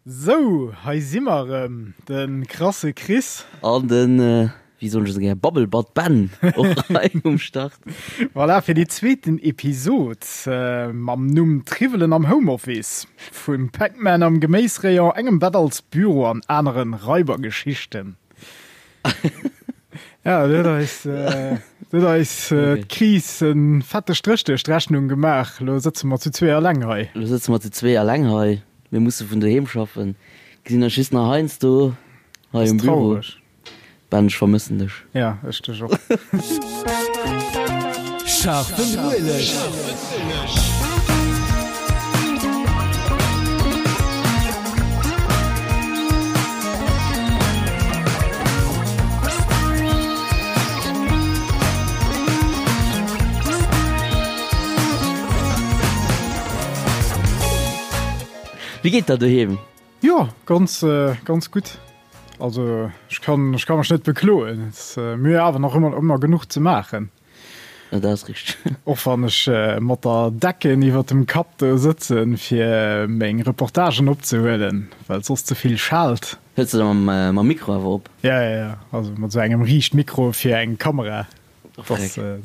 Sou, hei si mer erëm, de krasse Chris. An den, wéi soen ech esou gär, Babbelbatt Ben och hei um Start. Voilà, fir déi zweeten Episod mam Numm Triwwelen am Homeoffice, vum Pac-Man am Geméisrayon, engem Bett als Büro an aneren Raibergeschichten. Ja, do huet eis, do huet eis d'Kris e fette Stréch duerch d'Rechnung gemaach. Lo sëtze mer zu zwee eleng hei. Lo sëtze mer zu zwee eleng hei. Mir musse vun doheem schaffen. Gesinn eis just nach heiansdo hei um Büro. Ben, ech vermëssen dech. Ja, ech dech och. Scharfen Ueleg. Wéi geet der doheem? Jo, ganz ganz gutt. Also ech kann ech kann mech net bekloen. Mir hu awer nach ëmmer ëmmer genuch ze maachen. Ja, dat ass richteg. Och wann ech mat der Decken iwwer dem Kapp do sëtzen, fir meng Reportagen opzehuelen, well et soss ze vill schaalt. Hëls de da mam Mikro awer op? Ja, ja, ja, also mat esou engem Riichtmikro fir eng Kamera. Dat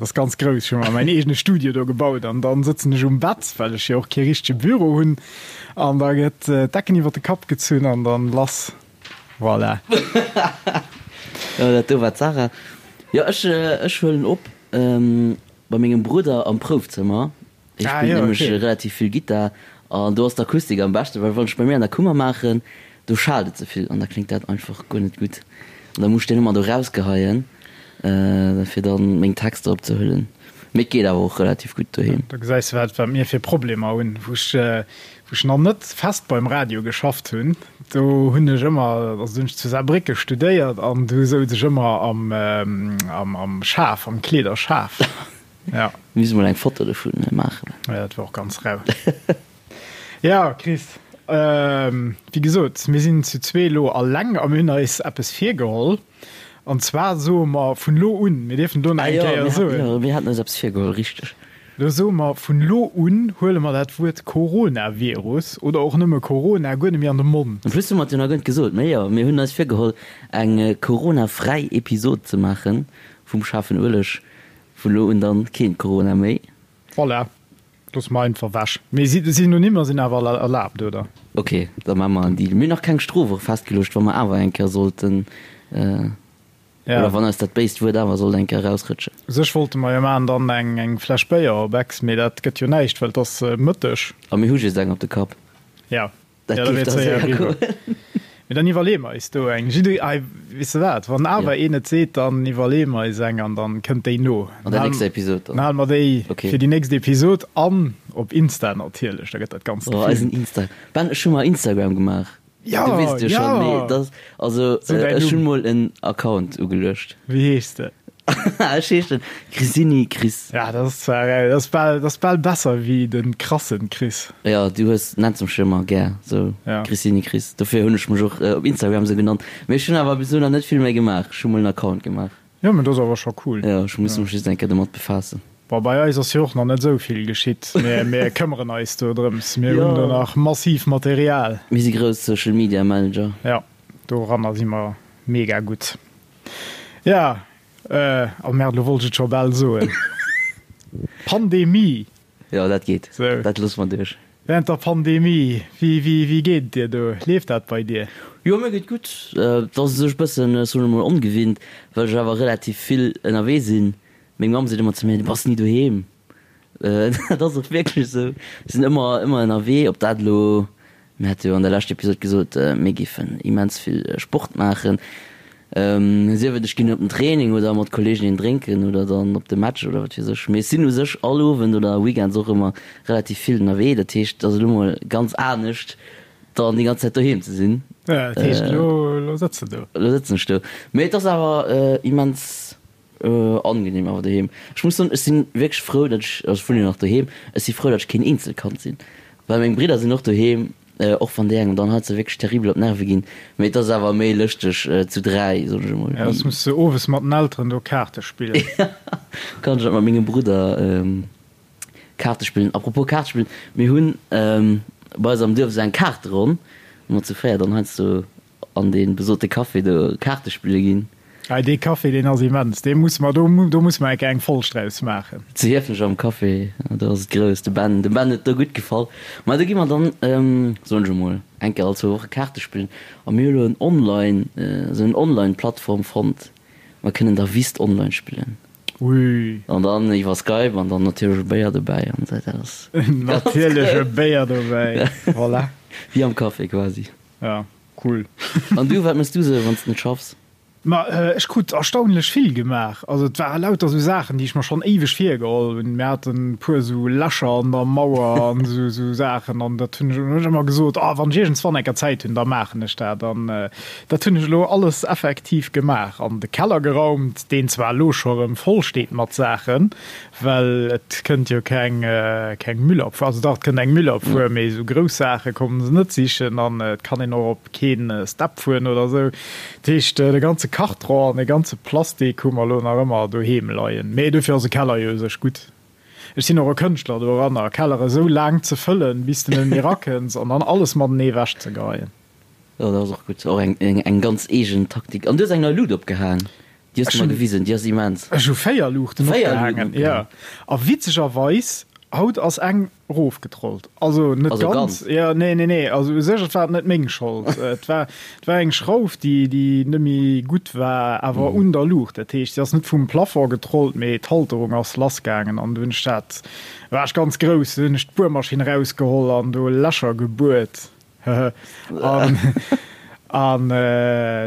ass ganz grouss. Ech hu mer mäin eegene Studio do gebaut an dann sëtzen ech um Bett, well ech jo och kee richtege Büro hunn. An da gëtt d'Decken iwwer de Kapp gezunn an dann lass. Voilà. Jo, dat do war d'Sarah. Jo, ech, ech huelen op bei mengem Brudder am Proufzëmmer. Hie Ah, spillt jo, nämlech okay. relativ vill Gittar an do ass d'Akustik am beschten, well wann ech bei mir an der Kummer maachen, do schaalt et ze vill an da kléngt dat einfach guer net gutt. An da muss ech deen ëmmer do rausgeheien, fir dann meng Texter opzehuelen. Mee et geet awer och relativ gutt doheem. Da gesäis de wat wat mir fir Problemer hunn. Wou ech wou ech nach net fest beim Radio geschafft hunn, do hunn ech ëmmer, also do hunn ech zu Saarbrécke studéiert an do souz ech ëmmer am am am Schaf, am Kleederschaf. Ja. Mir musse mol eng Foto dovun maachen. Ja, dat war och ganz rau. Ja, Chris, wéi gesot, mir sinn zu zwee elo alleng a mir hunn eis eppes virgeholl. An zwar soe mer vun elo un, mir dierfen do nach eng Kéier soen. Ah jo, mir haten eis eppes virgeholl, richteg. Elo soe mer, vun elo un huele mer dat Wuert Coronavirus oder och nëmme Corona guer net méi an de Mond. En plus hu mer et jo nach guer net gesot, mee jo, mir hunn eis virgeholl, eng Corona-fräi Episod ze maache vum schaarfen Ueleg. Vun elo un dann keen Corona méi. Voilà, loosse mer einfach wech. Mee Synonymer sinn awer erlaabt, oder? Ok, da maache mer en Deal. Mir hunn nach keng Strof och festgeluecht, wa mer awer eng Kéier sollten, oder wann eis dat béist Wuert awer sollt eng Kéier erausrëtschen. U sech wollte mer jo maachen dann eng Fläsch Béier op Ex, mee dat gëtt jo näischt, well et ass Mëtteg. A mir hu just eng op de Kapp. Ja. Dat Ja, da géif wier da et séier séier eriwwer. goen. Mee dann iwwerleeë mer eis do eng. Jidde, ei, weess de wat, wann awer Ja. een et seet, dann iwwerleeë mer eis eng an dann kënnt déi no. An der nächster Episod Dann dann. hale mer déi Okay. fir déi nächst Episod an op Insta natierlech, da gëtt dat Ganzt Oh, eisen gefilmt. Insta. Ben, ech hu mer Instagram gemaach. Ja, Du weess et jo schonn, mee ja! dat, also, Sou däin ech hunn Numm. mol en Account ugeluecht. Wéi heeschs de? Ech heeschen Crisini Chris. Ja, dat ass zwar, dat ass bal, dat ass bal besser wéi de krassen Chris. Jo, du hues, nenns mech jo ëmmer gär sou, Ja. Crisini Chris. Dofir hunn ech mech och op Instagram sou genannt. Mee ech hunn awer bis elo nach net vill méi gemaach. Ech hu mol en Account gemaach. Jo, mee dat ass awer scho cool. Jo, ech muss mech just eng Kéier domat befaassen. Bon, bei eis ass jo och nach net esou vill geschitt. Mir, mir këmmeren eis do drëms. Mir hunn do Jo. nach massiv Material. Mir si grouss Social Media Manager. Ja, doranner si mer mega gutt. Ja, oh merde, lo wollt ech et scho bal soen. Pandemie. Jo, dat geet. Sou. Dat loosse mer duerch. Während der Pandemie, wéi, wéi, wéi geet et dir do? Leeft dat bei dir? Jo, mir geet gutt. Et ass u sech e bëssen, soen ech mol, ongewinnt, well ech awer relativ vill ënnerwee sinn. Meng Mamm seet ëmmer zu mir, Du bass ni doheem. Dat ass och wierklech esou. Ech sinn ëmmer, ëmmer ënnerwee, ob dat elo, mir hate jo an der leschter Episod gesot, mir géifen immens vill Sport maachen, sief et ech ginn op den Training oder mat Kolleegen een drénken oder dann op de Match oder wat weess ech. Mee ech sinn u sech all Owend oder Weekends och ëmmer relativ vill ënnerwee. Dat heescht, et ass elo mol ganz anescht, dann déi ganz Zäit doheem ze sinn. Ja, dat heescht, elo, elo sëtz de do. Elo sëtzen ech do. Mee et ass awer immens Angenehm awer doheem. Ech muss soen, ech sinn wierklech frou, datt ech, also ech wunnen jo nach doheem, ech si frou, datt ech keen Eenzelkand sinn, well meng Bridder sinn och doheem, och wann déi engem dann heiansdo wierklech terribel op d'Nerve ginn, mee et ass awer méi lëschteg zu 3, soen ech emol. Ja, soss muss de owes mat den Elteren do Kaarte spillen. Kann ech dat mat mengem Brudder Kaarte spillen. Apropos Kaarte spillen, mir hunn bei eis am Duerf esou eng Kaarteronn. Mat zu 4 dann heiansdo an dee besote Café do Kaarte spille ginn. Hei dee Café deen ass immens, dee musse mer, do do musse mer eng Kéier eng Folg draus maachen. Zu Hiefenech am Café, do ass et grouss. De Ben, dem Ben huet et do gutt gefall. Ma do gi mer dann, soen ech emol, eng Kéier all zwou Woche Kaarte spillen. A mir hu lo en Online, esou en Online-Plattform fonnt, mer kënnen da Whist online spillen. Ui. An dann iwwer Skype an dann natierlech e Béier dobäi an esou, dat ass ganz Natierlech e Béier dobäi, voilà. Wéi am Café quasi. Ja, cool. An du, wat méchs du sou, wann s de net schaffs? Ma ech krut erstaunlech vill gemaach. Also et ware lauter sou Saachen, déi ech mer schonn éiweg virgeholl hunn. Mir haten e puer sou Lächer an der Mauer an sou sou Saachen an dat hunn ech hunn ech ëmmer gesot, ah wann ech iergendswann eng Kéier Zäit hunn, da maachen ech dat. An Dat hunn ech elo alles effektiv gemaach an de Keller geraumt, deen zwar elo scho rëm voll steet mat Saachen, well et kënnt jo keng keng Müllabfuhr, also dach et kënnt eng Müllabfuhr, mee esou grouss Saache kommen se net sichen an et kann een och op keen Step fueren oder esou. Dat heescht de ganze Kartron an de ganze Plastik hu mer elo nach ëmmer doheem leien, mee dofir ass e Keller jo u sech gutt. Ech sinn och e Kënschtler doranner, Kellere esou laang ze fëllen, bis de net méi rakënns an dann alles matenee ewechzegeien. Jo, dat ass och gutt. Och eng, eng, eng ganz eegen Taktik. An du hues eng nei Lut opgehaang. Déi hues du mer gewisen. Déi ass immens. Ech hu 4 Luuchten opgehaangen, jo. A witzegerweis, haut ass eng erofgetrollt. Also net ganz. Ganz? Jo, nee, nee, nee. Also u sech, et war net meng Schold. Et war, et war eng Schrauf, déi, déi net méi gutt war, awer un der Luucht. Dat heescht, se ass net vum Plafond getrollt, mee d'Halterung ass lassgaangen an du hunn ech dat, war ech ganz grouss, du hunn ech d'Buermaschinn erausgeholl an do Lächer gebuert. An, an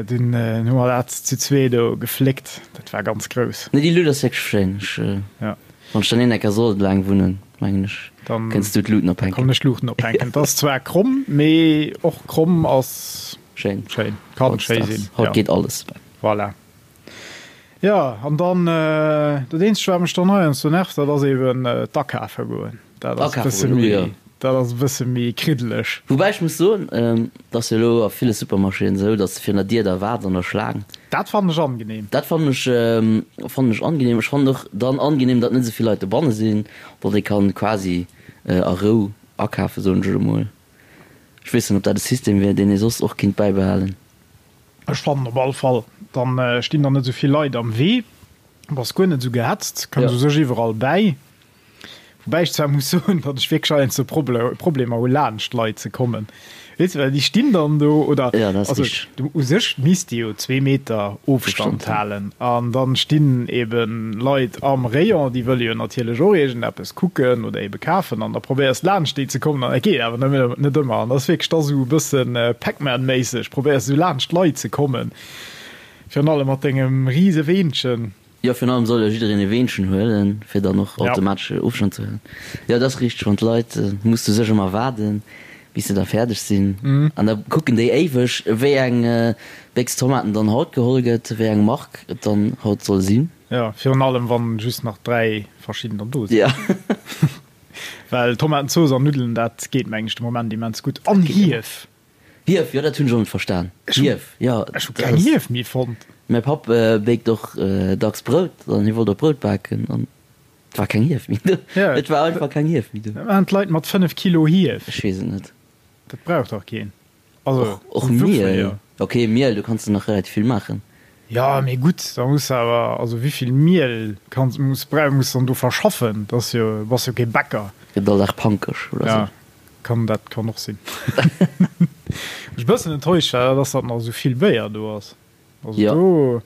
dunn hu mer dat zu zwee do gefléckt. Dat war ganz grouss. Nee, déi Luut ass wierklech schéin. Ech, ja. Wann ech dann een Ecker sollt laang wunnen, mengen ech, dann kënns du d'Luuten ophänken. Kann ech d'Luuten ophänken. Et ass zwar kromm, mee och kromm ass schéin. Schéin. Kann schéi sinn. Haut geet alles. Voilà. Jo, an dann, dat eenzegt wat mech dann heiansdo nervt, dat ass eben d'Akafe goen. Dat ass e bësse méi, dat ass e bësse méi kriddeleg. Woubäi ech muss soen, et ass jo elo a ville Supermarchéen esou, datt s de virun der Dier da waarts an der Schlaang. Dat fannen ech angenehm. Dat fannen ech, fannen ech angenehm. Ech fannen och dann angenehm, datt net esou vill Leit dobanne sinn, datt ee kann quasi a Rou akafen, soen ech elo mol. Ech weess net, ob dat e System wier, deen ee soss och kinnt bäibehalen. Ech fannen op all Fall, dann stinn der net esou vill Leit am Wee, bass guer net esou gehetzt, kënns u sech iwwerall bäi. Woubäi ech zwar muss soen, datt ech wierklech heiansdo Problemer hu laanscht Leit ze kommen, weess de, well déi stinn dann do oder also u sech misst ee jo zwee Meter Ofstand halen an dann stinn eben Leit am Rayon, déi wëlle jo natierlech och iergendeppes kucken oder ebe kafen an da probéiers laanscht déi ze kommen an dat geet awer net ëmmer an dat ass wierklech da sou e bëssen Pac-Man-méisseg, probéiers sou laanscht d'Leit ze kommen, virun allem mat dengem rise Weenchen. Jo, virun allem soll jo jiddereen e Weenchen huelen, fir dann och automatesch Ofstand ze huelen. Jo, dat ass richteg, wann d'Leit, muss du sech ëmmer waarden, bis se da fäerdeg sinn an da kucken déi éiweg, wéi eng Béchs Tomaten dann haut geholl gëtt, wéi eng Mark et dann haut soll sinn. Jo, virun allem wann just nach 3 verschiddener do sinn. Ja. Well Tomatenzooss an Nuddelen, dat geet mengen ech de Moment immens gutt. An Hief! Hief, jo dat hunn ech och net verstan. Hief, jo. Ech hu keng Hief méi fonnt. Mäi Papp béckt och dacks Brout an hie wollt och Brout baken an et war keng Hief méi do. Et war einfach keng Hief méi do. Wat maachen d'Leit mat 5 Kilo Hief? Ech weess et net. Dat brauch dach keen. Also, och Miel. Ok, Miel, do kanns de nach relativ vill maachen. Jo, mee gutt, da muss de awer, also wéivill Miel kanns, muss, brau, muss dann do verschaffen? Dat ass jo, bass jo kee Bäcker. Gëtt all Dag pankeg oder sou. Ja, kann, dat kann och sinn. Wat ech e bëssen enttäuscht war, dat ass, datt nach esou vill Béier do ass. Also do,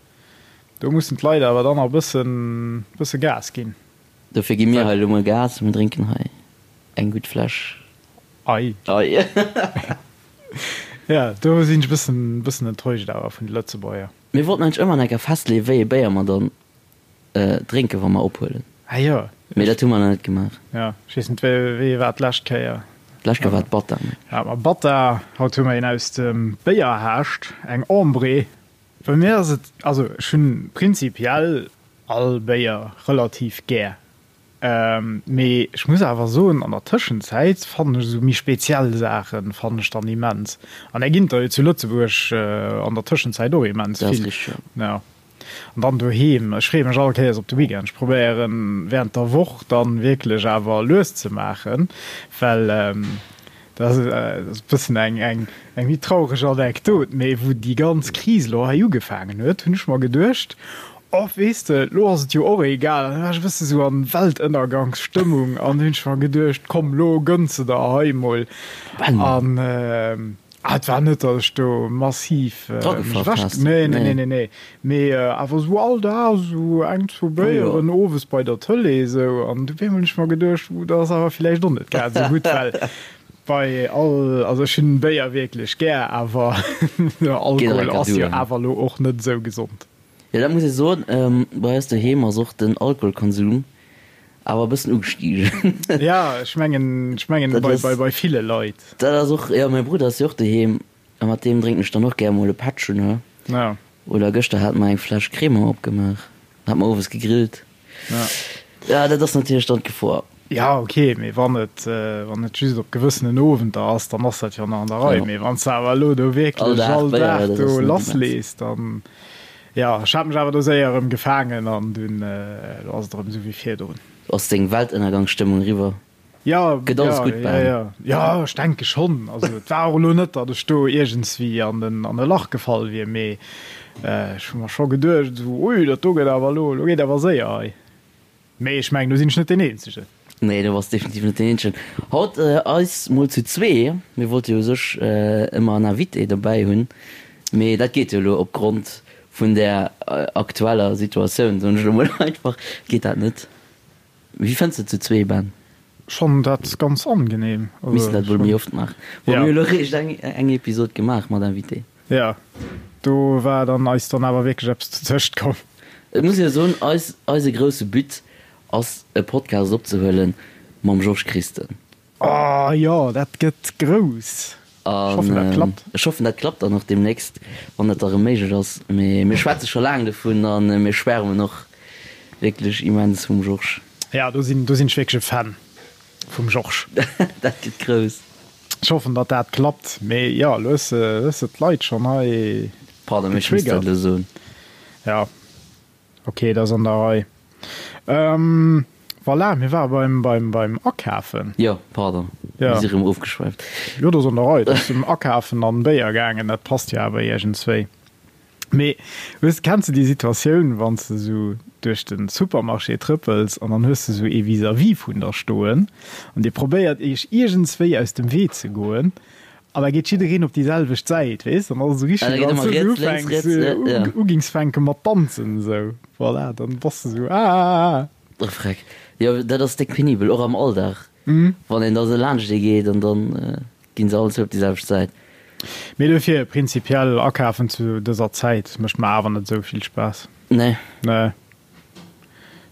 do mussen d'Leit awer dann nach e bëssen, bësse Gas ginn. Dofir gi mir hei elo mol Gas, mir drénken hei eng gutt Fläsch. Ei. Ei. Ja, do sinn ech e bëssen, bëssen enttäuscht awer vun de Lëtzebuerger. Mir wollten eigentlech ëmmer enker festleeën, wéi ee Béier mer dann drénken, wa mer ophuelen. Ah jo. Mee dat hu mer nach net gemaach. Ja, ech weess net, wéi, wéi war d'lescht Kéier? D'lescht Kéier war et Batta, mengen ech. Hate mer Batta, haut hu mer een aus dem Béierhaascht, eng Ambrée. Bei mir ass et, also ech hunn prinzipiell all Béier relativ gär. Mee ech muss awer soen, an der Tëschenzäit fannen ech esou méi speziell Saachen fannen ech dann immens. An där ginn der jo zu Lëtzebuerg an der Tëschenzäit och immens vill. Jo. An dann doheem, ech freeë mech all Kéiers op de Weekend. Ech probéieren während der Woch dann wierklech awer lues ze maachen, well. Dat ass e bëssen eng, eng, eng méi traureg Anekdot, mee wou déi ganz Kris elo hei ugefaangen huet, hunn ech mer geduecht, Oh, weess de, elo ass et jo och egal. An da war ech e bësse sou an Weltënnergangsstëmmung an hunn ech mer geduecht, komm, elo gënns de der hei mol. An ah, et war net, datt ech do massiv mech ewech, nee, nee, nee, nee, nee, mee awer sou all Dag sou eng, zwou Béieren owes bei der Tëlee sou. An du op eemol hunn ech mer geduecht, uh, dat ass awer villäicht och net grad sou gutt, well bei all, also ech hunn Béier wierklech gär, awer Alkohol ass jo awer elo och net sou gesond. Jo, dat muss ee soen. Bei eis doheem ass och den Alkoholkonsum awer e bëssen ugestigen. Ja, ech mengen, ech mengen bei, bei, bei ville Leit. Dat ass och, jo, mäi Brudder ass jo och doheem a mat deem drénken ech dann och gär mol e Pättchen, ne? Ja. Oder gëschter hate mer eng Fläsch Crémant opgemaach, hate mer owes gegrillt. Ja. Ja, dat ass natierlech dann d'Gefor. Ja, ok, mee wann et, wann et just op gewëssenen Owenter ass, dann ass dat jo nach an der Rei. Mee wann s de awer elo do wierklech all Dag do lasslees, dann, jo, ech hat mech awer do séier erëm gefaangen an dunn, elo ass et erëm esou wéi virdrun. Ass deng Weltënnergangsstëmmung eriwwer? Jo, jo, jo, jo, jo, ech denke schonn. Also et war och elo net, datt ech do iergendswéi an en, an e Lach gefall wier, mee ech hu mer scho geduecht, esou, ui, dat do gëtt awer elo, elo geet awer séier hei. Mee ech mengen, do sinn ech net deen Eenzegen. Nee, do bass definitiv net deen Eenzegen. Haut eis mol zu zwee. Mir wollte jo u sech ëmmer en Invité dobäi hunn, mee dat geet jo elo opgrond vun der aktueller Situatioun, soen ech elo mol einfach, geet dat net. Wéi fënns de zu zwee, Ben? Schonn dat ganz angenehm. Missten dat wuel méi oft maachen. Bon, mir hu elo réischt eng eng Episod gemaach mat Invité. Jo, do war dann eis dann awer wierklech eppes dozëscht komm. Et muss een jo soen, eis, eise grousse But ass e Podcast opzehuelen mam Georges Christen. Oh jo, dat gëtt grouss. Ech hoffen dat klappt. Ech hoffen dat klappt dann och deemnächst, wann dat da rëm méiglech ass. Mee mir schwätze scho laang dovun a mir schwärmen och wierklech immens vum Georges. Jo, do sinn, do sinn ech wierklech e Fan vum Georges. Dat gëtt grouss. Ech hoffen datt dat klappt, mee jo, elo hues de, hues de d'Leit schonn hei Pardon, mee ech misst dat getriggert. elo soen. Jo, ok, dat ass an der Rei. Voilà, mir ware beim, beim, beim Akafen. Jo, pardon, mir si rëm ofgeschwäift. Jo, dat ass an der Rei. Dat ass ëm Akafen an Béier gaangen, dat passt jo awer iergendswéi. Mee hues, kenns de déi Situatioun, wann s de esou duerch de Supermarché trëppels an dann hues de esou ee vis-à-vis vun der stoen an dir probéiert iech iergendswéi aus dem Wee ze goen an da geet jiddereen op déi selwecht Säit, weess? Dann ass et esou richteg, wéi wann s du ufänks, ugings fänke mat danzen esou. Voilà, dann bass de sou aah. Oh freck, jo dat ass déck penibel, och am Alldag, wann een da sou laanscht ee geet an dann ginn se all zwou op déi selwecht Säit. Mee dofir prinzipiell akafen zu dëser Zäit mécht mer awer net esou vill Spaass. Nee. Nee.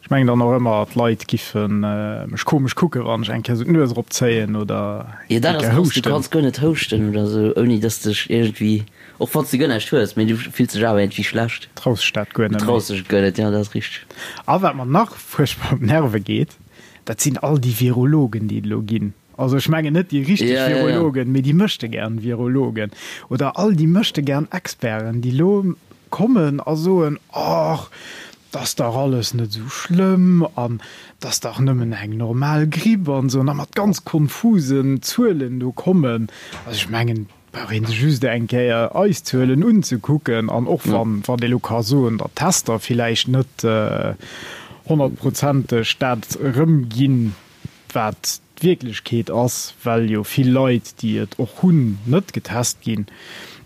Ech mengen dann och ëmmer d'Leit giffe mech komesch kucken, wann ech eng Kéier sou d'Nues erop zéien oder Jo dat ass krass, du kanns guer net houschten oder sou ouni dass dech iergendwéi, och wann s de guer näischt hues, mee du fills dech awer iergendwéi schlecht. Traus dech dat guer net méi. Du traus dech et guer net, jo dat ass richteg. A wat mer nach fuerchtbar op d'Nerve geet, dat sinn all déi Virologen déi et elo ginn. Also ech mengen net déi richteg Virologen, mee déi möchtegern Virologen oder all déi möchtegern Experten, déi elo kommen a soen, Och, 't ass dach alles net esou schlëmm an 't ass dach nëmmen eng normal Gripp an esou, an da mat ganz konfusen Zuelen do kommen. Also ech mengen, et brauch ee sech just eng Kéier eis Zuelen unzekucken an och wann, wann ee elo ka soen, datt d'Tester villäicht net honnertprozenteg dat erëmginn, wat d'Wierklechkeet ass, well jo vill Leit, déi et och hunn, net getest ginn.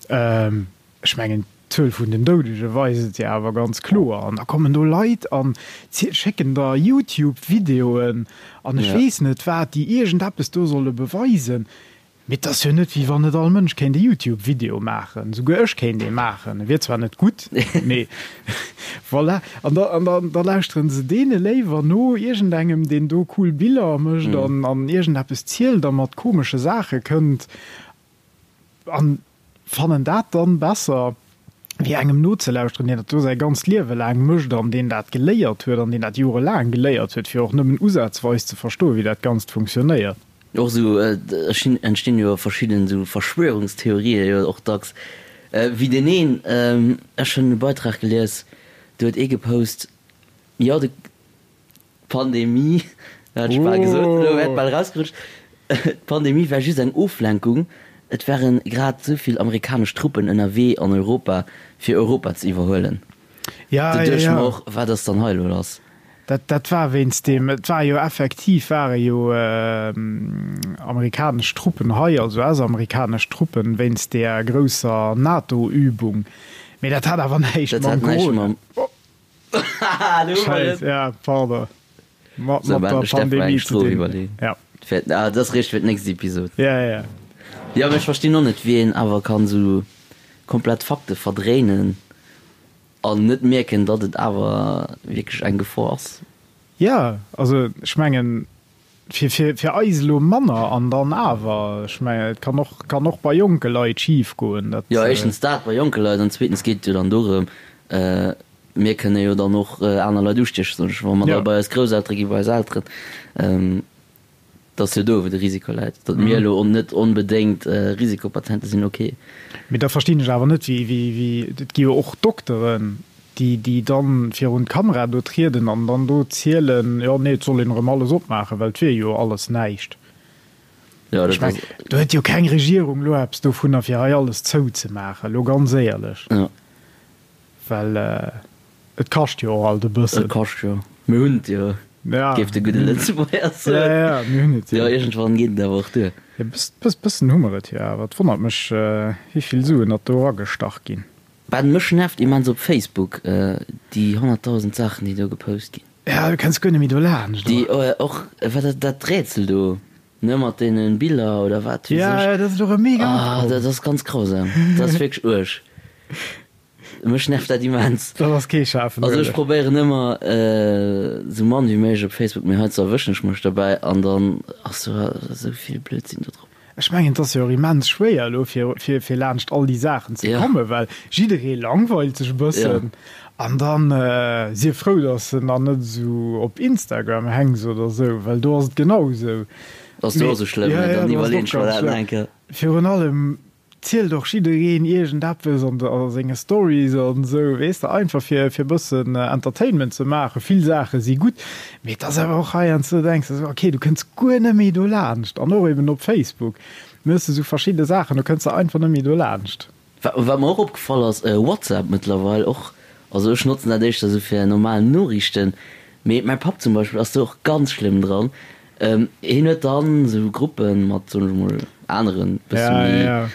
Ech mengen, d'Zuel vun den Doudege weist et jo awer ganz kloer. An da kommen do Leit a schécken der YouTube-Videoen an ech weess net wat, déi iergendeppes do solle beweisen. Mee et ass jo net, wéi wann net all Mënsch kéint e YouTube-Video maachen. Souguer ech kéint ee maachen. E wier zwar net gutt, mee voilà. An da, an da, da lauschteren se deene léiwer no, iergendengem, deen do cool Biller mécht an, an iergendeppes zielt a mat komesche Saache kënnt. An fannen dat dann besser, wéi engem nozelauschteren, deen dat do säi ganzt Liewe laang mécht an deen dat geléiert huet an deen dat jorelaang geléiert huet, fir och nëmmen usazweis ze verstoen, wéi dat Ganzt funktionéiert. Och esou entstinn jo verschidden esou Verschwörungstheorien jo och dacks, wéi deen een, ech hunn e Beitrag gelies, do huet ee gepost, jo de. Pandemie, hat ech bal gesot, elo wäert bal erausgerutscht. D'Pandemie war just eng Oflenkung, et ware grad esou vill amerikanesch Truppen ënnerwee an Europa, fir Europa ze iwwerhuelen. Ja, Do ja, duecht ech ja. mer och, wat ass dann hei elo lass? Dat, dat war wéinst deem, et war jo effektiv, ware jo amerikanesch Truppen hei, also US-amerikanesch Truppen, wéinst deeër grousser NATO-Übung. Mee dat hat awer näischt Dat mam hat näischt Corona. mam. Haha, do hu mer Scheiss, et! ja, pardon. Mat, Sou, mat mä der ech däerf mer eng Pandemie ze Strof dinn. iwwerleeën. Ja. Fir, ah, dat ass réischt fir d'nächst Episod. Ja, ja, ja. Jo, mee ech verstinn och net, wéi een awer kann esou komplett Fakte verdréinen an net mierken, datt et awer wierklech eng Gefor ass. Jo, also ech mengen, fir, fir, fir eis elo manner an dann awer, ech mengen, et kann och, kann och bei jonke Leit schif goen, dat. Jo, éischtens dat bei jonke Leit an zweetens geet et jo dann dorëm, mir kënne jo dann och aner Leit ustiechen, soen ech, wa mer da bei eis Grousseltere ginn, bei eis Elteren. Et ass jo do, wou de Risiko läit. Datt mir elo net onbedéngt Risikopatiente sinn, ok. Mee da verstinn ech awer net, wéi, wéi, wéi, et gi jo och Dokteren, déi, déi dann virun d'Kamera do trieden an dann do zielen, jo, nee, et soll een erëm alles opmaachen, well et wier jo alles näischt. Jo, Ech dat meng, ass. do huet jo keng Regierung elo eppes dovunner, fir hei alles zouzemaachen, elo ganz éierlech. Jo. Well et kascht jo och alt e bëssen. Et kascht jo. Mir hunn et jo, Ja. géif de gudde Lëtzebuerger soen. Ja, ja, mir hunn et jo. Jo, iergendwann geet et awer och duer. E bëssen hu mer et jo awer. Et wonnert mech, wéi vill Suen datt do eragestach ginn. Ben, mech nervt immens op Facebook déi 100.000 Saachen, déi do gepost ginn. Ja, du kenns guer net méi do laanscht, Déi oder? och, wat dat, dat Rätsel do, ne, mat deene Biller oder wat weess Ja, ech. ja, dat ass och e mega Ah, opkomm. dat ass ganz grausam. Dat ass wierklech uerg. Mech nervt dat immens. Dat ass kee schaarfen Also ech Ueleg. probéieren ëmmer esou mann wéi méiglech op Facebook, mee heiansdo erwëschen ech mech derbäi an dann ass do esou vill Blödsinn do drop. Ech mengen et ass jo och immens schwéier elo fir fir fir laanscht all déi Saachen ze Ja. kommen, well jidderee langweilt sech e bëssen an dann sief frou, datt s de nach net esou op Instagram hänks oder esou, well do ass et genau esou. Ass do Mee och esou schlëmm, ja, ne? ja, Dann do ass et iwwerleen och ech mer ganz dat nach schlëmm. eng Kéier. Virun allem zielt och jiddereen iergendeppes an a senge Stories an esou, weess de, einfach fir fir e bëssen Entertainment ze maachen. Vill Saache si gutt, mee et ass awer och heiansdo, do denks de esou, okay, du kënns guer net méi dolaanscht. An och eben op Facebook méchs de esou verschidde Saachen, do kënns de einfach net méi dolaanscht. Wat wat mer och opgefall ass, WhatsApp mëttlerweil och, also ech notzen dat éischter esou fir normal Noriichten, mee mäi Papp zum Beispill ass do och ganz schlëmm dran, Hien huet dann esou Gruppen mat, soen ech mol, aneren, bësse méi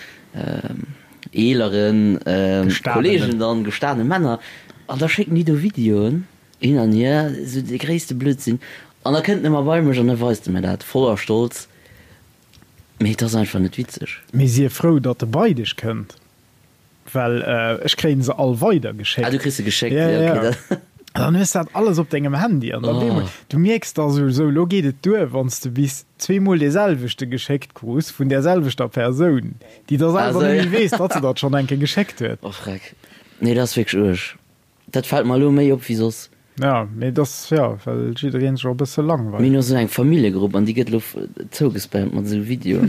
eeleren Kollegen dann, gestane Männer, an da schécken déi do Videoen hin an hier, esou de gréisste Blödsinn, an da kënnt en ëmmer bei mech an da weist e mir dat voller Stolz, mee et ass einfach net witzeg. Mee sief frou, datt e bei dech kënnt. Well ech kréien se all weider geschéckt. Ah, du kriss se geschéckt, ja, ja, okay. Ja. Dann hues dat alles op dengem Handy an dann oh. du mierks da sou, sou lo geet et duer, wann s de bis zweemol dee selwechte geschéckt krus vun där selwechter Persoun, déi da selwer Also, net ja. méi weess, datt se dat schonn eng Kéier geschéckt huet. Oh freck. Nee, dat ass wierklech uerg. Dat fält mer elo méi op wéi soss. Ja, mee dat ass, ja, well jiddereen sech och e bësse langweilt. Mir hunn och esou eng Familljegrupp an déi gëtt elo zougespammt mat esou Videoen.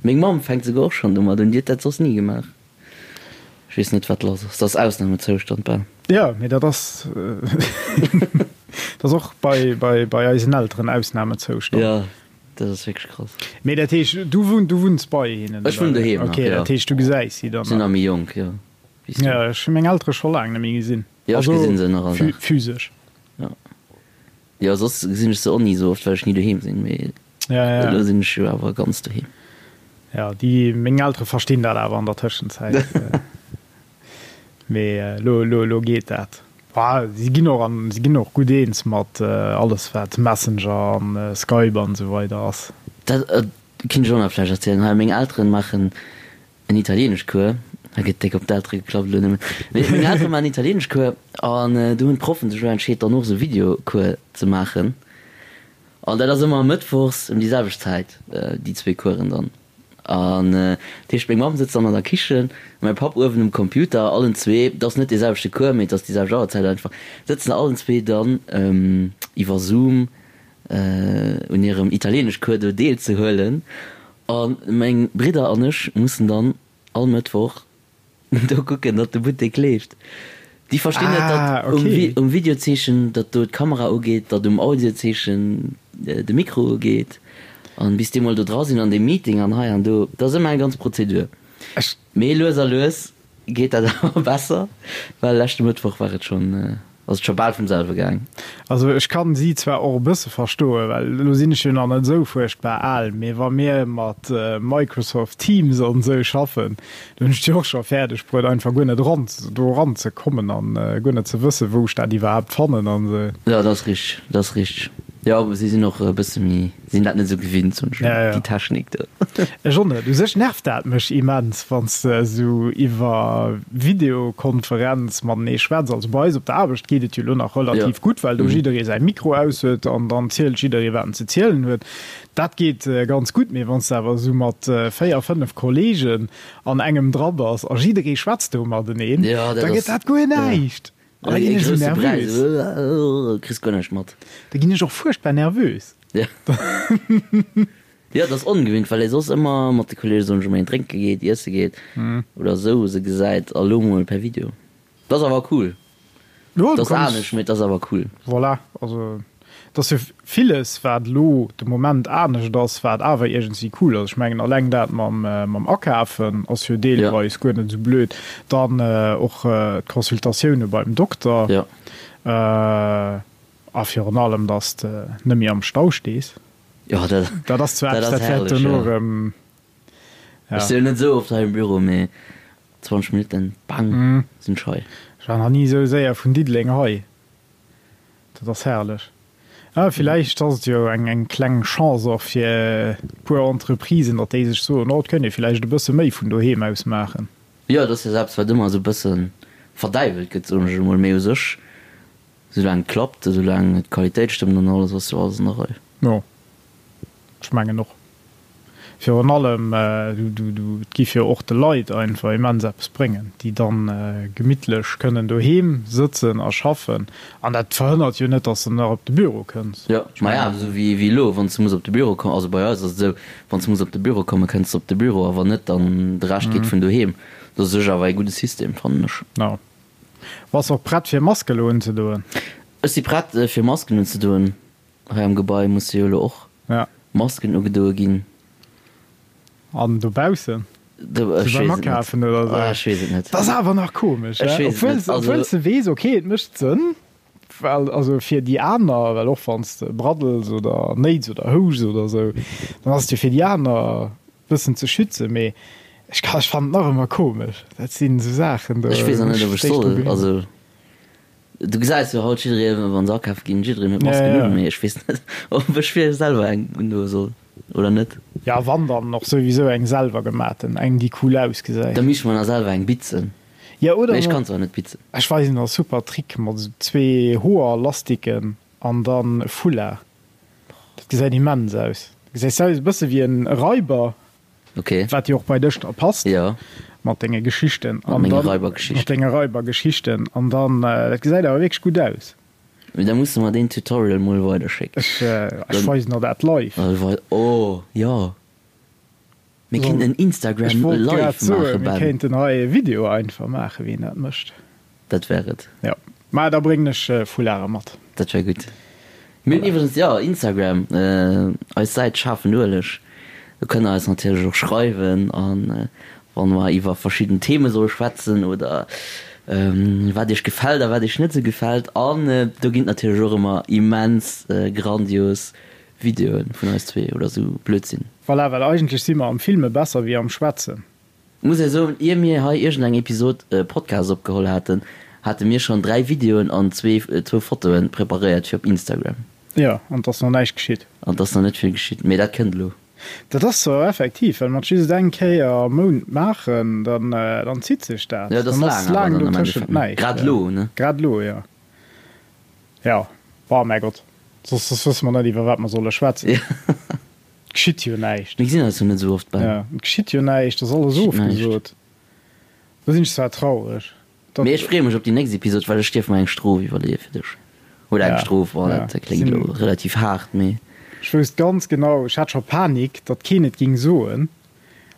Meng Mamm fänkt souguer och schonn domat un, déi huet dat soss ni gemaach. Ech weess net, wat lass ass. Dat ass Ausnamezoustand bal. Ja, mee dat ass, dat ass och bei, bei, bei eisen Elteren Ausnamezoustand. Ja, dat ass wierklech krass. Mee dat heescht, du wunn, du wunns bei hinnen, Ech wunnen oder? doheem nach, Okay, jo. dat heescht, du gesäis si dann Sinn nach. nach méi jonk, jo, wéi s du. Ja, ech hu meng Eltere scho laang net méi gesinn. Jo, ech gesinn se nach all Dag. Physesch. Jo. Jo, soss gesinn ech se och ni esou oft, well ech ni doheem sinn, mee Ja, ja. elo sinn ech jo awer ganz doheem. Ja, déi, meng Eltere verstinn dat awer an der Tëschenzäit. Mee elo, elo, elo geet dat. Bah, si ginn och an, si ginn och gutt eens mat alles wat Messenger an Skype an esou weider ass. Dat kinnt ech och nach vläicht erzielen. Hei, meng Elteren maachen En Italieeneschcours, hei gëtt déck op d'Eltere geklappt elo nëmmen, mee meng Eltere maachen Italieeneschcours an do hunn d'Proffen sech elo entscheet dann och esou Videocours ze maachen an dat ass ëmmer mëttwochs ëm déi selwecht Zäit, déi zwee Coursen dann. An dat heescht meng Mamm sëtzt dann an der Kichen, mäi Papp uewen um Computer, allen zwee, et ass net dee selwechte Cours, mee et ass déi selwecht Auerzäit einfach, sëtzen allen zwee dann iwwer Zoom un hirem Italieeneschcours do deelzehuelen A meng Bridder an ech mussen dann all Mëttwoch do kucken, datt de Buttek leeft. Déi verstinn net, datt um Videozeechen, datt do d'Kamera ugeet, datt um Audiozeechen de Mikro ugeet. An bis déi mol do dra sinn an deem Meeting an hei an do, dat ass ëmmer eng ganz Prozedur. Mee lues a lues geet dat awer besser, well leschte Mëttwoch war et schonn, ass et scho bal vum selwe gaang. Also ech kann si zwar och e bësse verstoen, well elo sinn ech jo nach net esou fuerchtbar al, mee wa mir mat Microsoft Teams an esou schaffen, do hunn ech et jo och scho fäerdeg bruet einfach guer net eran do eran ze kommen an guer net ze wëssen, wou ech dat iwwerhaapt fannen an esou. Jo, dat ass richteg, dat ass richteg. Jo, si sinn och e bësse méi, sinn dat net esou gewinnt, soen ech mol, déi Technik do. Ech och net. U sech nervt dat mech immens, wann s de esou iwwer Videokonferenz matenee schwätz. Also bei eis op der Aarbecht geet et jo elo nach relativ gutt, well do jidderee säi Mikro aus huet an dann zielt jidderee, wat en ze zielen huet. Dat geet ganz gutt. Mee wann s de awer esou mat 4, 5 Kolleegen an engem dra bass a jidderee schwätzt do mateneen, da gëtt dat guer näischt. An da ginn ech esou nervös. Kriss guer näischt mat. Da ginn ech och fuerchtbar nervös. Ja. Jo, dat ass ongewinnt, well ee soss ëmmer mat de Kolleege soen ech emol een drénke geet, iesse geet oder esou se gesäit a lo mol per Video. Dat ass awer cool. Jo, du kanns. Dat ass anescht, mee et ass awer cool. Voilà, also Et ass jo villes, wat elo de Moment anescht ass, wat awer iergendwéi cool ass. Ech mengen, alleng dat mam Akafen ass jo deelweis guer net esou blöd. Dann och d'Consultatioune beim Dokter. A virun allem, datt s de net méi am Stau stees. Dat ass zwar eppes, dat wäert dono erëm. Ech si jo net esou oft hei am Büro, mee 20 Minutten, bang, sinn ech hei. Ech war nach ni esou séier vun Diddeleng hei. Dat ass herrlech. Ah, villäicht ass et jo eng eng kleng Chance och fir e puer Entreprisen, datt déi sech soen, oh, et kënnt ee villäicht e bësse méi vun doheem aus maachen. Jo, et ass jo eppes, wat ëmmer esou e bësse verdäiwelt gëtt, soen ech emol. Mee u sech, soulaang et klappt, soulaang d'Qualitéit stëmmt an alles, ass jo alles an der Rei. Jo, ech mengen och. Virun allem, et giff jo och de Leit einfach immens eppes bréngen, déi dann gemittlech kënnen doheem sëtzen a schaffen. An dat verhënnert jo net, dass de nach op de Büro kënns. Jo, maja, esou wéi elo, wann s de muss op de Büro kommen, also bei eis ass et esou, wann s de muss op de Büro kommen, kënns de op de Büro a wann net, dann de Rescht geet vun doheem. Dat ass u sech awer ee gudde System, fannen ech. Jo. Bass och prett fir Mask elo unzedoen? Ech si prett fir Masken unzedoen. Hei am Gebai musse jo elo och Masken ugedoe ginn. An dobaussen? Sou beim Akafen oder sou? Ech weess et net. Dat ass awer nach komesch, he? Obwuel s de weess, ok, et mécht Sënn, well also fir déi aner, well och wann s de braddels oder néits oder houschs oder sou, dann ass et jo fir déi aner e bëssen ze schützen, mee ech ka, ech fannen et nach ëmmer komesch. Dat sinn esou Saachen, do. Ech weess nach net, ob ech soll. Also. Du gesäis jo haut jidderee wann se akafe ginn, jiddereen huet Masken un, mee ech weess net ob ech fir selwer eng undoe soll oder net. Ja wann dann och souwisou eng selwer gematen, eng déi cool ausgesäit. Da misst mer nach selwer eng bitzen. Ja oder Mee ech kann zwar net bitzen. Ech weisen der e super Trick mat esou zwee Hoerlastiken an dann e Foulard. Dat gesäit immens aus. Gesäis aus e bësse wéi en Raiber. Okay. Wat jo och bei dech da passt. Ja. Mat denge Geschichten. Mat menge Raibergeschichten. Mat denge Raibergeschichten. An dann, dat gesäit awer wierklech gutt aus. Mee da muss de mer deen Tutorial mol weiderschécken. Ech, ech weisen der dat live. Oh, jo. Mir kéinten en Instagram Ech wollt Live grad soen, maachen, mir Ben. kéinten hei e Video einfach maachen, wéi een dat mécht. Dat wär et. Jo. Mä da bréngen ech Foularde mat. Dat wär gutt. Mir hunn iwwregens, jo, Instagram, eis Säit Schaarfen Ueleg. Do kënnt der eis natierlech och schreiwen a wa mer iwwer verschidden Theme solle schwätzen oder wat iech gefält a wat iech net esou gefält. An do ginn et natierlech och ëmmer immens grandios Videoe vun eis zwee oder esou Blödsinn. Voilà, well eigentlech si mer am Filme besser wéi am Schwätzen. Muss ee soen, ier mir hei iergend eng Episod Podcast opgeholl haten, hate mir schonn 3 Videoen an zwee zwou Fotoen preparéiert fir op Instagram. Jo, an 't ass nach näischt geschitt. An 't ass nach net vill geschitt, mee dat kënnt elo. Dat ass zwar effektiv, well mer et just eng Kéier am Mount maachen, dann dann zitt sech dat. Jo, et ass Dann ass laang awer laang dann am dotëschent Endeffekt, ne? näischt. Grad elo, ne? Grad elo, jo. Jo, oh mäi Gott, soss soss wësse mer net iwwer wat mer solle schwätzen. Jo. Et geschitt jo näischt. Mir gesinn eis jo net esou oft, Ben. Ja, et geschitt jo näischt, ass alles Geschitt näischt. ofgesot. Do sinn ech zwar traureg, datt. Mee ech freeë mech op déi nächst Episod, well ech dierf mer eng Strof iwwerleeë fir dech. Oder eng Ja, Strof, oh, ja, dat kléngt sinn. elo relativ haart, mee. Ech wousst ganz genau, ech hat scho Panik, datt keen et ging soen,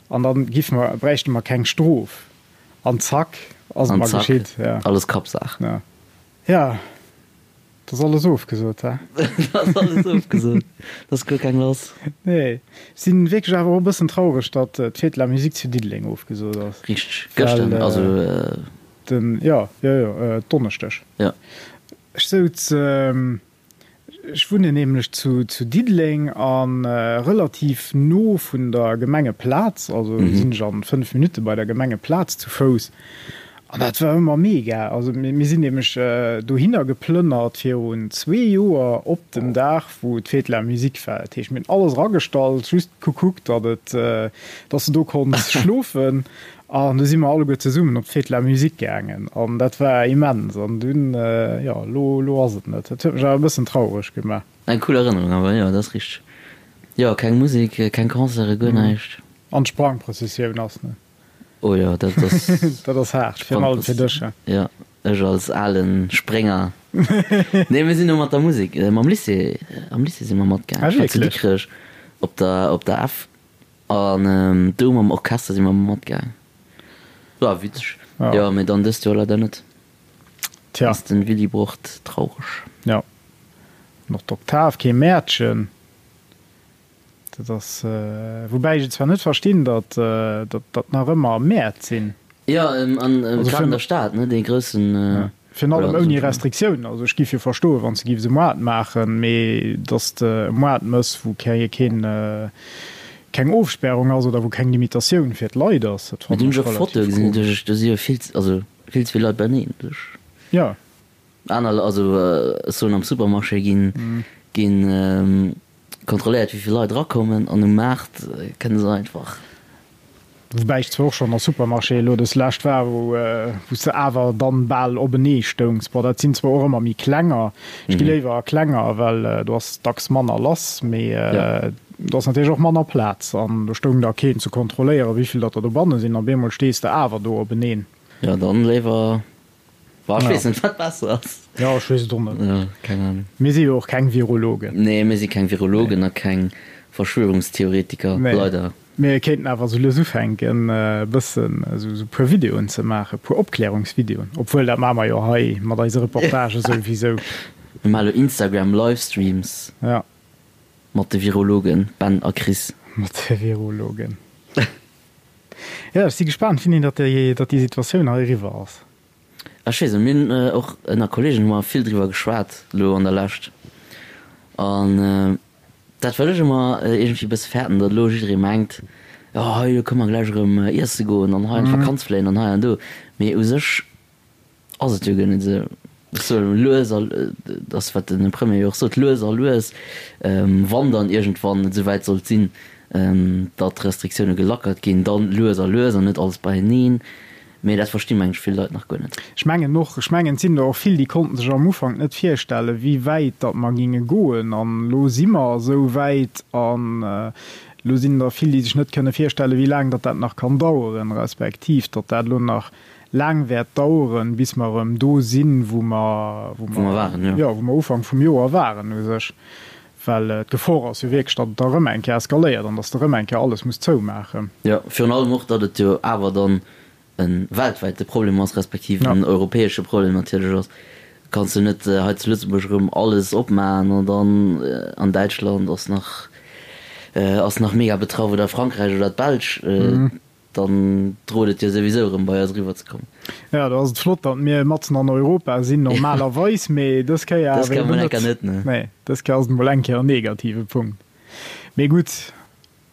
an dann giffe mer, bräichte mer keng Strof. An zack, ass et An mer zack, geschitt, ja. alles Kappsaach. Ja. Ja. Dat ass alles ofgesot, he? Dat ass alles ofgesot. Dat ass guer keng lass. Nee. Ech sinn wierklech awer och e bëssen traureg, datt d'Fête de la Musique zu Diddeleng ofgesot ass. Richteg. Gëschter, also. Den, jo, jo, jo, Donneschdeg. Jo. Ech souz. Ech wunnen nämlech zu Diddeleng a relativ no vun der Gemengeplaz, also sinn ech an 5 Minutte bei der Gemengeplaz zu Fouss. An dat war ëmmer mega. Also mir sinn nämlech dohinner geplënnert virun zwee Joer op dem Dag wou d'Fête de la Musique war. Dat heescht mir hunn alles eragestallt, just gekuckt, datt et, datt s de do konns schlofen. An du si mer alleguer zesummen op d'Fête de la Musique gaangen an dat war immens. An dunn, jo, elo, elo ass et net. Dat huet mech awer e bëssen traureg gemaach. Eng cool Erënnerung awer, jo, dat ass richteg. Jo, keng Musek, keng Concerte, guer näischt. An d'Sprangprëssessioun ass net. Oh jo, dat ass. Dat ass haart, virun allem fir dech, he? Jo, ech als ale Sprénger. Nee, mir sinn do mat der Musek, mam Lycée, am Lycée si mer matgaangen. Ah, wierklech? Ech war zu Dikrech op der, op der F. An do mam Orchester si mer matgaang. War witzeg. Jo, mee dann dëst Joer leider net. Tja. Ass den Willibrord traureg. Jo. An och d'Oktav, kee Mäertchen. Dat ass, woubäi ech et zwar net verstinn, datt datt nach ëmmer Mäert sinn. Jo, an grad an der Stad, ne, dee groussen. Virun allem ouni Restriktiounen. Also ech giff jo verstoen, wann se giff se Moart maachen, mee datt de e Moart mëss, wou keng keng Ofspärung ass oder wou keng Limitatioun fir d'Leit ass, dat fannen ech relativ komesch. Do si jo vill, also vill ze vill Leit beieneen. Jo. Aner, also ech soen am Supermarché ginn ginn kontrolléiert wéi vill Leit erakommen an um Maart kënne se einfach. Woubäi ech zwar och schonn a Supermarchéë elo dës lescht war, wou wou s de awer dann bal openee stoungs. Bon, dat sinn zwar och ëmmer méi klenger, ech gi léiwer a klenger, well do ass dacks manner lass, mee do ass natierlech och manner Plaz an do stoung da keen ze kontrolléieren, wéi vill datt der dobanne sinn. Op eemol stees de awer do openeen. Jo, dann léiwer Boah, ech weess net, wat besser ass. Jo, ech weess et och net. Jo, keng Ahnung. Mir si jo och keng Virologen. Nee, mir si keng Virologen a keng Verschwörungstheoretiker, Nee. leider. Mir kéinten awer esou lues ufänken, e bëssen esou e puer Videoen ze maachen, e puer Opklärungsvideoen. Obwuel, dat maache mer jo hei mat eise Reportagë souwisou. Mir maache elo Instagram-Livestreams. Ja. Mat de Virologen Ben a Chris. Mat de Virologen. Jo, ech si gespaant, wéini datt déi, datt déi Situatioun hei eriwwer ass. Ech weess net, mir hunn och ënner Kollegen hu mer vill driwwer geschwat elo an der Lescht. An dat wat ech ëmmer iergendwéi e bësse fäerten, datt elo jidderee mengt, jo hei elo kënne mer gläich erëm iesse goen an hei an d'Vakanz fléien an hei an do. Mee u sech Ass et jo guer net esou. Ech soen lues a, dat ass wat den Premier jo och sot, lues a lues, wann dann iergendwann et esouwäit sollt sinn, datt d'Restriktioune gelackert ginn, dann lues a lues an net alles beieneen. Mee dat versti meng ech vill Leit nach guer net. Ech mengen och, ech mengen et sinn der och vill, déi konnten sech am Ufank net virstellen, wéi wäit datt mer géinge goen. An elo si mer esou wäit an elo sinn der vill, déi sech net kënne virstellen, wéi laang datt dat nach kann daueren, respektiv datt dat elo nach laang wäert daueren, bis mer erëm do sinn, wou mer, wou mer waren, jo, wou mer Ufank vum Joer waren u sech. Well d'Gefor ass jo wierklech, datt et da erëm eng Kéier eskaléiert an datt s de erëm eng Kéier alles muss zoumaachen. Jo, virun allem och, datt et jo awer dann e weltwäite Problem ass, respektiv en europäesche Problem natierlech ass. Kanns du net hei zu Lëtzebuerg erëm alles opmaachen an dann an Däitschland ass nach, ass nach mega betraff oder Frankräich oder d'Belsch. Dann droht et jo souwisou erëm bei eis eriwwer ze kommen. Jo, do ass et flott, datt mir matzen an Europa sinn normalerweis, mee dës Kéier awer eben net. Dës Kéier mol eng Kéier net, ne? Nee, dës Kéier ass et mol eng Kéier en negative Punkt. Mee gutt,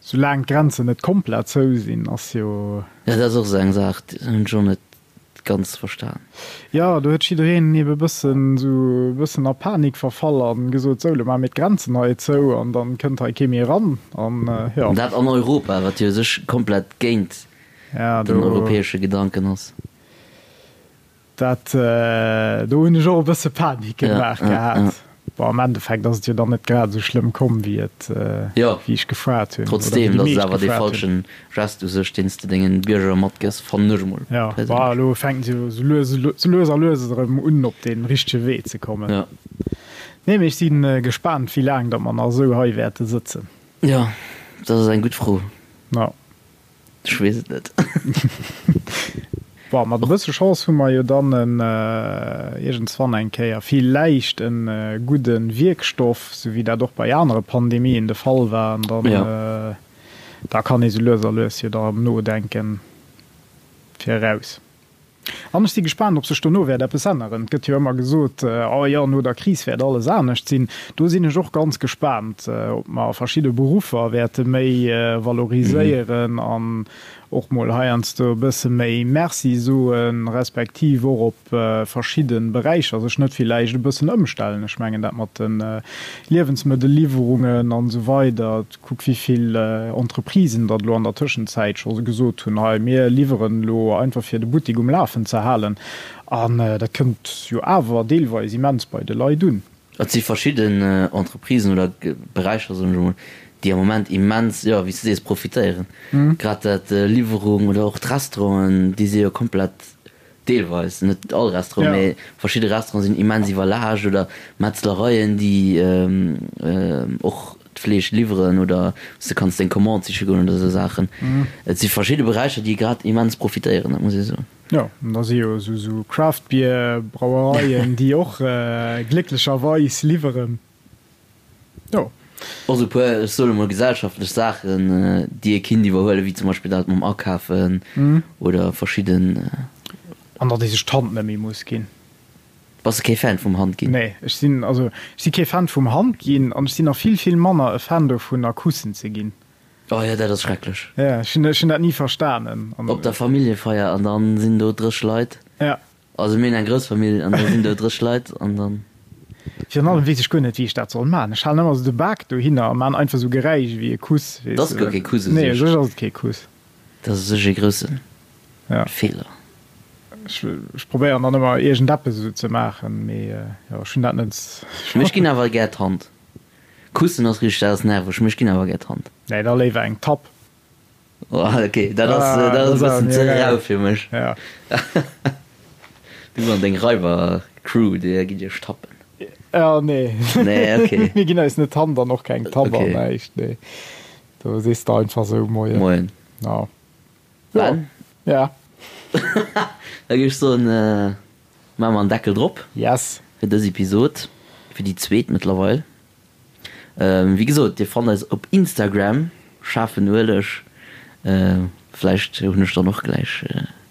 soulaang d'Grenzen net komplett zou sinn, ass jo. Jo, dat ass och esou eng Saach, déi hunn ech och net ganz verstan. Jo, do huet jiddereen ebe bëssen esou e bëssen a Panik verfall an gesot, sou, lo maache mir d'Grenzen hei zou an dann kënnt hei kee méi eran an jo. An dat an Europa, wat jo u sech komplett géint den europäesche Gedanken ass. Dat, do hunn ech och e bësse Panik gemaach gehat. Bon, am Endeffekt ass et jo dann net grad esou schlëmm komm, wéi et, wéi ech gefaart hunn. Trotzdem, dat ass awer dee falschen Gest u sech, deen s de dengen Bierger matgëss, fannen ech emol perséinlech. Jo, bon, elo fänken se jo esou lues, esou lues a lues erëm un, op dee richtege Wee ze kommen. Jo. Nee, mee ech si gespaant, wéi laang datt mer nach esou hei wäerte sëtzen. Jo, dat ass eng gutt Fro. Jo. Ech weess et net. Bon, mat e bësse Chance hu mer jo dann en iergendswann eng Kéier villäicht e gudde Wierkstoff, sou wéi dat och bei anere Pandemien de Fall war, an dann da kann ee sou lues a lues jo da erëm nodenken fir eraus. An ech si gespaant, ob sech dono wäert eppes änneren. Et gëtt jo ëmmer gesot, oh jo, no der Kris wäert alles anescht sinn. Do sinn ech och ganz gespaant, ob mer verschidde Beruffer wäerte méi valoriséieren an och mol heiansdo e bësse méi Merci soen, respektiv och op verschidde Beräicher sech net villäicht e bëssen ëmstellen. Ech mengen dat mat de Liewensmëttelliwwerungen an esou weider. Kuck wéi vill Entreprisen datt elo an der Tëschenzäit scho gesot hunn, hei mir liwweren elo einfach fir de Buttik um Lafen ze halen. An dat kënnt jo awer deelweis immens bei de Leit un. Et si verschidden Entreprisen oder Beräicher, soen ech emol, déi am Moment immens, jo, wéi s de sees, profitéieren. Grad dat Liwwerung oder och d'Restauranten, déi si jo komplett, deelweis, net all Restaurant, mee verschidde Restauranten sinn immens iwwerlaascht oder Metzlereien, déi och d'Fleesch liwweren oder wou s de kanns deng Commande siche goen oder esou Saachen. Et si verschidde Beräicher, déi grad immens profitéieren, dat muss ee soen. Jo, an da si jo esou Craft Beer Brauereien, déi och glécklecherweis liwweren. Jo. Och esou e puer, ech soen emol gesellschaftlech Saachen, déi ee kinnt iwwerhuelen, wéi zum Beispill dat mam Akafen oder verschidden. An datt ee sech d'Hand net méi muss ginn. Bass de kee Fan vum Hand ginn? Nee, ech sinn, also ech si kee Fan vum Hand ginn an ech sinn nach vill, vill manner e Fan dovunner Kussen ze ginn. Oh jo, dat ass schrecklech. Ja, ech hunn, ech hunn dat ni verstanen. An. Op der Familljefeier an dann sinn do 30 Leit. Ja. Also mir hunn eng grouss Famill an da sinn do 30 Leit an dann. Virun allem weess ech guer net wéi ech dat soll man. Ech halen ëmmer esou de Bak dohinner a man einfach esou Geräisch ewéi e Kuss, weess de. Dat ass guer kee Kuss u sech. Nee, u sech ass et kee Kuss. Dat ass u sech e grousse Feeler. Ech, ech probéieren dann ëmmer iergendeppes esou ze maachen, mee jo, ech hunn dat net. Mee ech ginn awer gär d'Hand. Kussen ass richteg, dat ass nerveg, mee ech ginn awer gär d'Hand. Nee, da léiwer eng Tapp. Oh, ok, dat ass, ah, dat ass e bëssen ze rau fir mech. Ja. Du an deng Raiber-Crew, dir gitt iech tappen. Ja, nee. Nee, ok. Mir ginn eis net d'Hand an och keng Tapp an näischt, nee. Do sees de einfach sou Moien. Moien. Ja. Ben? Ja. Da géif ech soen, Maache mer en Deckel drop. Yes. Fir dës Episod, fir déi zweet mëttlerweil. Wéi gesot, dir fannt eis op Instagram, schaarfen Ueleg. Vläicht hunn ech dann och gläich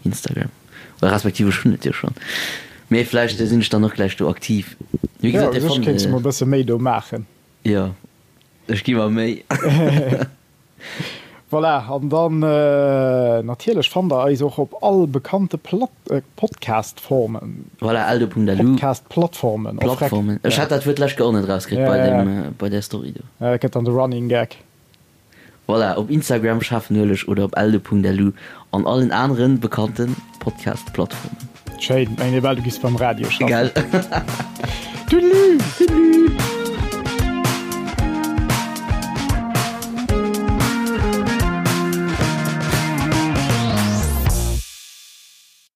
Instagram, oder respektiv ech hunn et jo schonn, mee vläicht sinn ech dann och gläich do aktiv. Wéi gesot, dir fannt. Jo, u sech kéints de mol e bësse méi do maachen. Jo, ech gi mer Méi. Voilà, an dann natierlech fannt der eis och op all bekannte Podcast-Formen. Voilà, eldo.lu. Podcast-Plattformen. Plattformen. Ech hat dat Wuert d'lescht Kéier och net erauskritt bei deem, bei där Story do. Ja, dat gëtt dann de Running Gag. Voilà, op Instagram schaarfenueleg oder op eldo.lu an allen aneren bekannte Podcast-Plattformen. Schéin, mengen ee bal du giss beim Radio schaffen. Gell? Toodaloo! Toodaloo!